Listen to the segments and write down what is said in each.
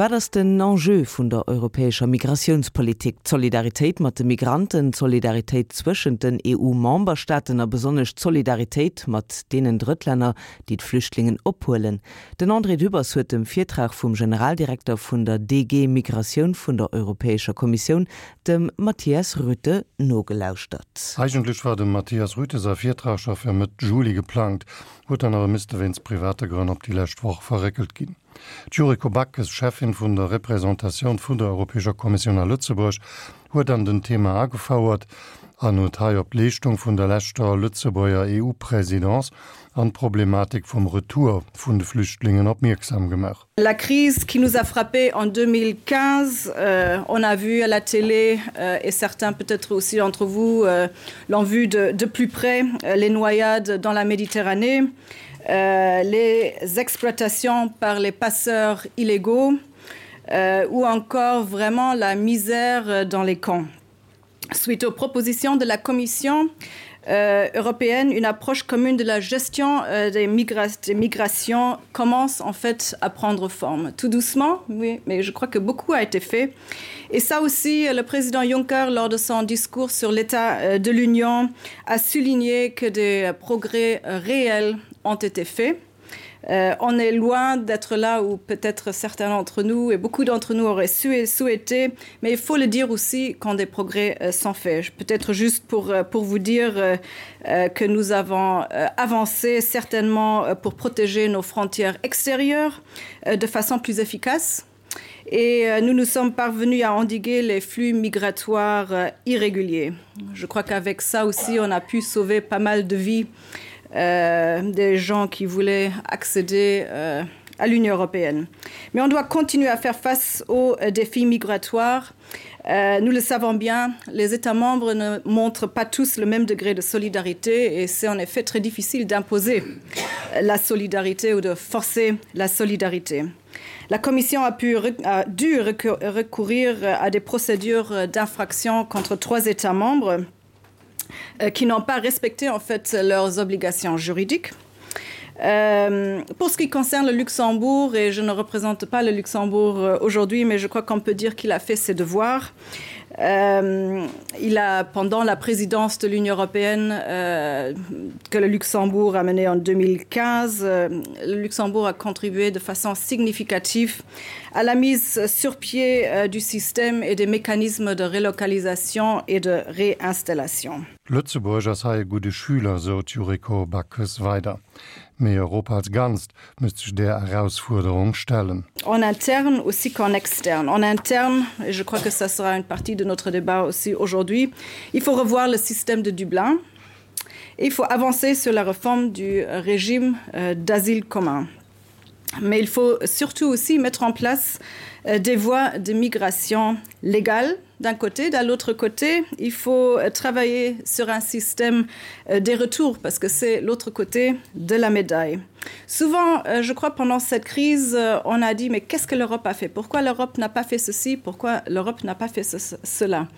Wat ass den Enjeu vun der europäescher Migratiounspolitik? D'Solidaritéit mat de Migranten, d'Solidaritéit zwëschent den EU-Memberstaaten a besonnesch d'Solidaritéit mat deenen Drëttlänner, déi d'Flüchtlingen ophuelen. Den André Dübbers huet dem Virtrag vum Generaldirekter vun der DG Migratioun vun der Europäescher Kommissioun, dem Matthias Rüthe, nogelauschtert. Eigentlech war dem Matthias Rüthe säi Virtrag scho fir Mëtt Juli geplangt, huet dann awer misste wéinst private Grënn op déi lescht Woch verréckelt ginn. D'Yuriko Backes, Cheffin vun der Représentatioun vun der Europäescher Kommissioun a Lëtzebuerg, huet an den Thema agefouert an huet hei op d'Leeschtung vun der leschter Lëtzebuerger EU-Présidence an d'Problematik vum Retour vun de Flüchtlingen opmierksam gemaach. La crise qui nous a frappé en 2015, on a vu à la télé et certains peut-être aussi d'entre vous l'ont vu de, de plus près les noyades dans la Méditerranée, euh, les exploitations par les passeurs illégaux euh, ou encore vraiment la misère dans les camps. Suite aux propositions de la Commission euh, européenne, une approche commune de la gestion euh, des, migra des migrations commence en fait à prendre forme. Tout doucement, oui, mais je crois que beaucoup a été fait. Et ça aussi, le président Juncker, lors de son discours sur l'état euh, de l'Union, a souligné que des progrès réels ont été faits. Euh, on est loin d'être là où peut-être certains d'entre nous et beaucoup d'entre nous auraient su souhaité, mais il faut le dire aussi quand des progrès euh, sont faits. Peut-être juste pour, euh, pour vous dire euh, euh, que nous avons euh, avancé certainement euh, pour protéger nos frontières extérieures euh, de façon plus efficace. Et euh, nous nous sommes parvenus à endiguer les flux migratoires euh, irréguliers. Je crois qu'avec ça aussi, on a pu sauver pas mal de vies euh, des gens qui voulaient accéder euh, à l'Union européenne. Mais on doit continuer à faire face aux euh, défis migratoires. Euh, nous le savons bien, les États membres ne montrent pas tous le même degré de solidarité et c'est en effet très difficile d'imposer la solidarité ou de forcer la solidarité. La Commission a, pu, a dû recourir à des procédures d'infraction contre trois États membres euh, qui n'ont pas respecté en fait leurs obligations juridiques. Euh, pour ce qui concerne le Luxembourg et je ne représente pas le Luxembourg euh, aujourd'hui, mais je crois qu'on peut dire qu'il a fait ses devoirs. Euh, il a pendant la présidence de l'Union européenne euh, que le Luxembourg a mené en 2015, euh, le Luxembourg a contribué de façon significative à la mise sur pied euh, du système et des mécanismes de relocalisation et de réinstallation. Lëtzebuerg ass hei e gudde Schüler, sou d'Yuriko Backes weider. Mee Europa als Ganzt müsst sech där Erausfuerderung stellen. En interne aussi qu'en externe. En interne, et je crois que ça sera une partie de notre débat aussi aujourd'hui, il faut revoir le système de Dublin. Et il faut avancer sur la réforme du régime euh, d'asile commun. Mais il faut surtout aussi mettre en place euh, des voies de migration légales d'un côté, de l'autre côté, il faut euh, travailler sur un système euh, des retours parce que c'est l'autre côté de la médaille. Souvent, je crois pendant cette crise, on a dit mais qu'est-ce que l'Europe a fait Pourquoi l'Europe n'a pas fait ceci Pourquoi l'Europe n'a pas fait ce, cela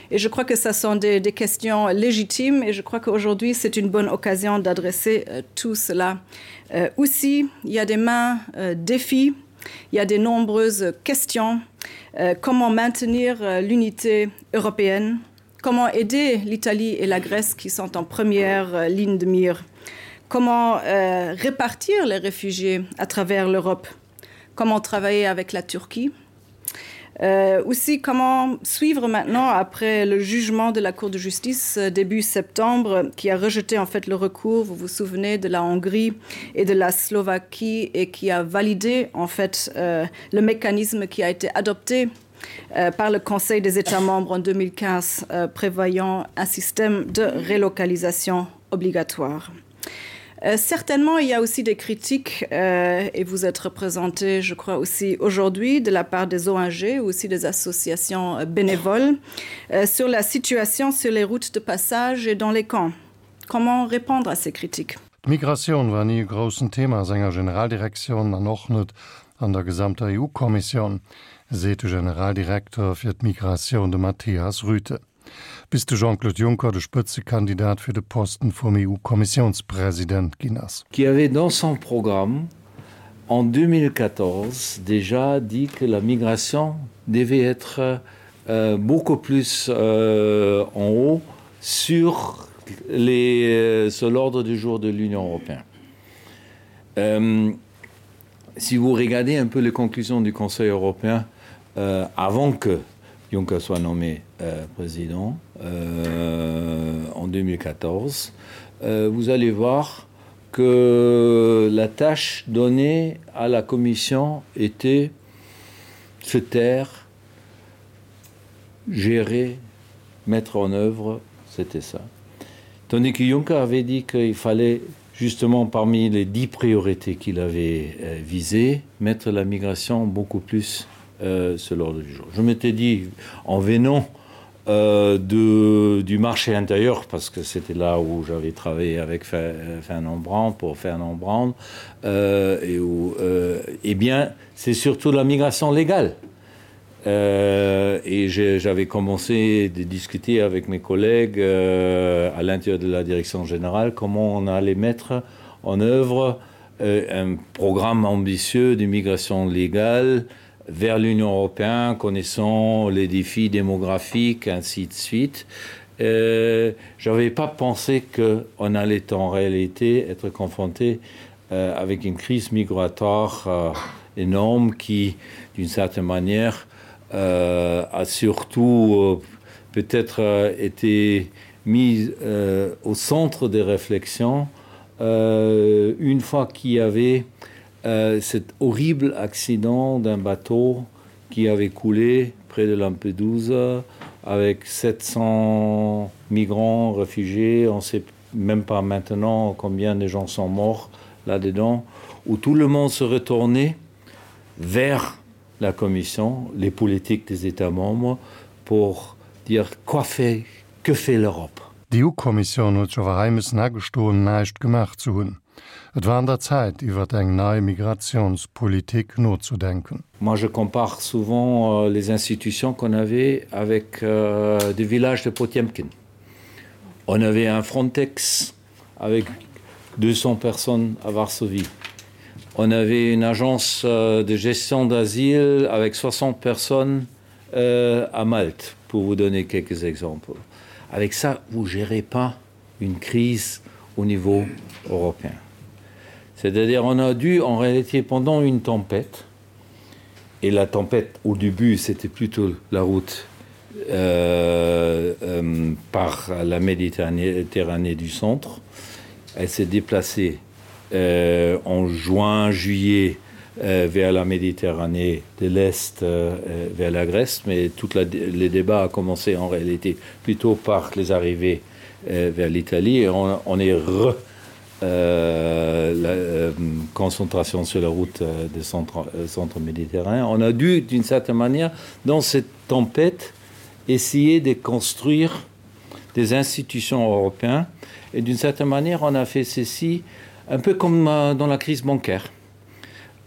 Et je crois que ça sont des, des questions légitimes et je crois qu'aujourd'hui c'est une bonne occasion d'adresser tout cela. Euh, aussi, il y a des mains euh, défis, il y a des nombreuses questions. Euh, comment maintenir euh, l'unité européenne Comment aider l'Italie et la Grèce qui sont en première euh, ligne de mire Comment euh, répartir les réfugiés à travers l'Europe Comment travailler avec la Turquie Euh, aussi comment suivre maintenant après le jugement de la Cour de justice euh, début septembre qui a rejeté en fait le recours vous vous souvenez de la Hongrie et de la Slovaquie et qui a validé en fait euh, le mécanisme qui a été adopté euh, par le Conseil des États membres en 2015 euh, prévoyant un système de relocalisation obligatoire. Euh, certainement, il y a aussi des critiques euh, et vous êtes représenté, je crois aussi aujourd'hui de la part des ONG ou aussi des associations euh, bénévoles euh, sur la situation sur les routes de passage et dans les camps. Comment répondre à ces critiques? D'Migratioun war ni e groussen Thema a senger Generaldirektioun an och net an der gesamter EU-Kommissioun, seet de Generaldirekter fir d'Migratioun, de Matthias Rüthe. Bis de Jean-Claude Juncker de Spëtzekandidat fir de Posten vum EU-Kommissiounspresident ginn ass. Qui avait dans son programme. en 2014 déjà dit que la migration devait être euh, beaucoup plus euh, en haut sur les euh, sur l'ordre du jour de l'Union européenne. Euh, si vous regardez un peu les conclusions du Conseil européen euh, avant que Juncker soit nommé euh, président euh, en 2014, euh, vous allez voir que la tâche donnée à la commission était se taire, gérer, mettre en œuvre, c'était ça. Tandis que Juncker avait dit qu'il fallait justement parmi les dix priorités qu'il avait euh, visées, mettre la migration beaucoup plus euh, sur l'ordre du jour. Je m'étais dit en venant euh, de, du marché intérieur parce que c'était là où j'avais travaillé avec Fernand Brand pour Fernand Brand euh, et où euh, eh bien c'est surtout la migration légale. Euh, et j'avais commencé de discuter avec mes collègues euh, à l'intérieur de la direction générale comment on allait mettre en œuvre euh, un programme ambitieux d'immigration légale vers l'Union européenne, connaissant les défis démographiques, ainsi de suite. Euh, je n'avais pas pensé qu'on allait en réalité être confronté euh, avec une crise migratoire euh, énorme qui, d'une certaine manière, euh, a surtout euh, peut-être euh, été mise euh, au centre des réflexions euh, une fois qu'il y avait euh, cet horrible accident d'un bateau qui avait coulé près de Lampedusa avec 700 migrants réfugiés, on sait même pas maintenant combien de gens sont morts là-dedans, où tout le monde se retournait vers la Commission, les politiques des États membres pour dire quoi fait, que fait l'Europe. D'EU-Kommissioun huet sech awer hei missen agestoen, näischt gemaach ze hunn. Et war an der Zäit, iwwert eng nei Migratiounspolitik nozedenken. Moi je compare souvent euh, les institutions qu'on avait avec euh, des villages de Potemkin. On avait un Frontex avec 200 personnes à Varsovie. On avait une agence euh, de gestion d'asile avec 60 personnes euh, à Malte, pour vous donner quelques exemples. Avec ça, vous gérez pas une crise au niveau européen. C'est-à-dire on a dû en réalité pendant une tempête et la tempête au début c'était plutôt la route euh, euh, par la Méditerranée du centre. Elle s'est déplacée euh, en juin juillet euh, vers la Méditerranée de l'Est euh, euh vers la Grèce, mais toute la, les débats a commencé en réalité plutôt par les arrivées euh, vers l'Italie et on, on est re euh, la euh, concentration sur la route euh, des centres, euh, centres méditerranéens. On a dû, d'une certaine manière, dans cette tempête, essayer de construire des institutions européennes. Et d'une certaine manière, on a fait ceci un peu comme euh, dans la crise bancaire.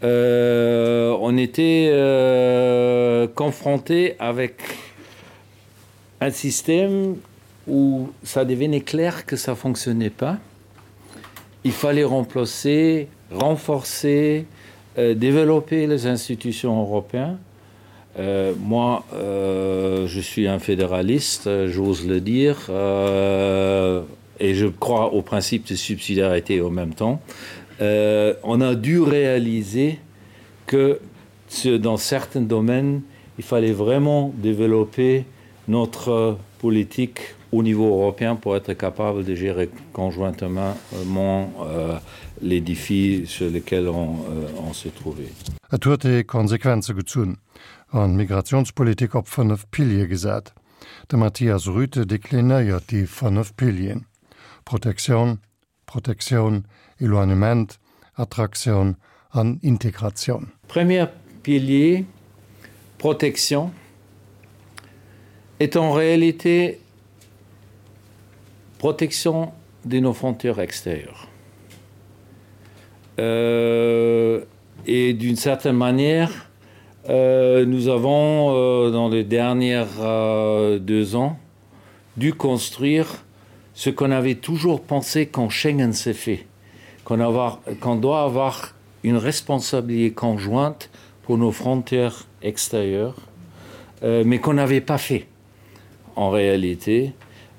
Euh, on était euh, confronté avec un système où ça devenait clair que ça fonctionnait pas. Il fallait remplacer, renforcer, euh, développer les institutions européennes. Euh, moi, euh, je suis un fédéraliste, j'ose le dire, euh, et je crois au principe de subsidiarité en même temps. Euh, on a dû réaliser que ce, dans certains domaines, il fallait vraiment développer notre politique au niveau européen pour être capable de gérer conjointement euh, les défis sur lesquels on, euh, on se trouvait. Et huet ee Konsequenze gezunn an d'Migratiounspolitik op 5 Piliere gesat. De Matthias Rüthe deklinéiert déi 5 Pilieren, Protektioun, Protektioun, Eloignement, Attraktioun an Integratioun. Premier pilier, protection, est en réalité protection de nos frontières extérieures. Euh, et d'une certaine manière, euh, nous avons, euh, dans les dernières euh, deux ans, dû construire ce qu'on avait toujours pensé quand Schengen s'est fait, qu'on qu doit avoir une responsabilité conjointe pour nos frontières extérieures, euh, mais qu'on n'avait pas fait en réalité.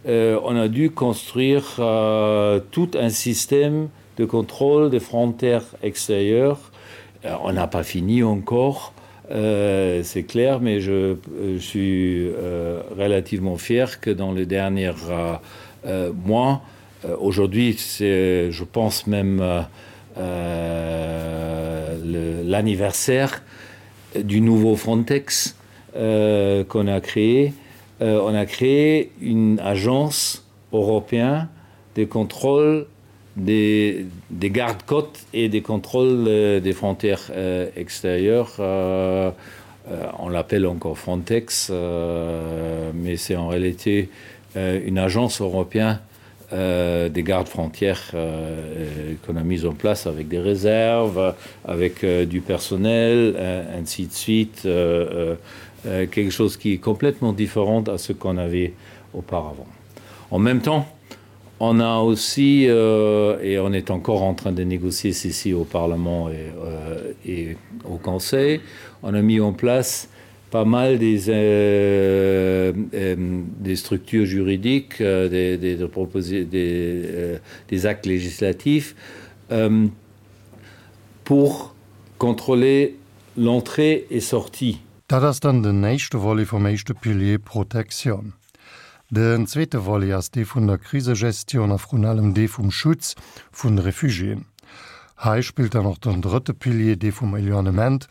Euh, on a dû construire euh, tout un système de contrôle des frontières extérieures. Euh, on n'a pas fini encore, euh, c'est clair, mais je, je suis euh, relativement fier que dans les derniers euh, euh, mois, euh, aujourd'hui, c'est, je pense même euh, euh, l'anniversaire du nouveau Frontex euh, qu'on a créé. Euh, on a créé une agence européenne de contrôle des, des gardes-côtes et des contrôles euh, des frontières euh, extérieures. Euh, euh, on l'appelle encore Frontex, euh, mais c'est en réalité euh, une agence européenne euh, des gardes frontières euh, qu'on a mise en place avec des réserves, avec euh, du personnel, euh, ainsi de suite, euh, euh, quelque chose qui est complètement différent à ce qu'on avait auparavant. En même temps, on a aussi euh, et on est encore en train de négocier ceci au Parlement et, euh, et au Conseil, on a mis en place pas mal des, euh, euh, des structures juridiques, euh, des, des, des, proposer, des, euh, des actes législatifs euh, pour contrôler l'entrée et sortie. Dat ass dann den éischte Volet vum éischte Pilier Protektioun. Den zweete Volet ass dee vun der Krisegestioun a vrun allem dee vum Schutz vun de Refugiéen. Hei spillt dann och den drëtte Pilier, dee vum Éloignement,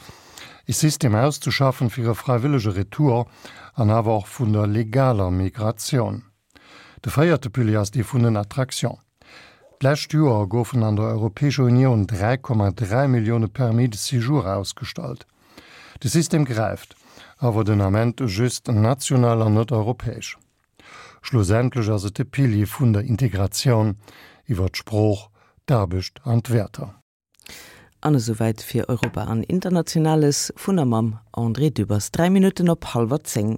e System auszeschaffen fir e fräiwëllege Retour an awer och vun der legaler Migratioun. De véierte Pilier ass dee vun den Attraction. D'lescht Joer goufen an der Europäescher Unioun 3,3 Millioune Permis de séjour ausgestallt. De System gräift awer den Ament just national an net europäesch. Schlussendlech ass et de Pilier vun der Integratioun iwwer d'Sprooch, d'Aarbecht an d'Wäerter. An esouwäit fir Europa an Internationales vun a mam André Dübbers. 3 Minutten op hallwer 10.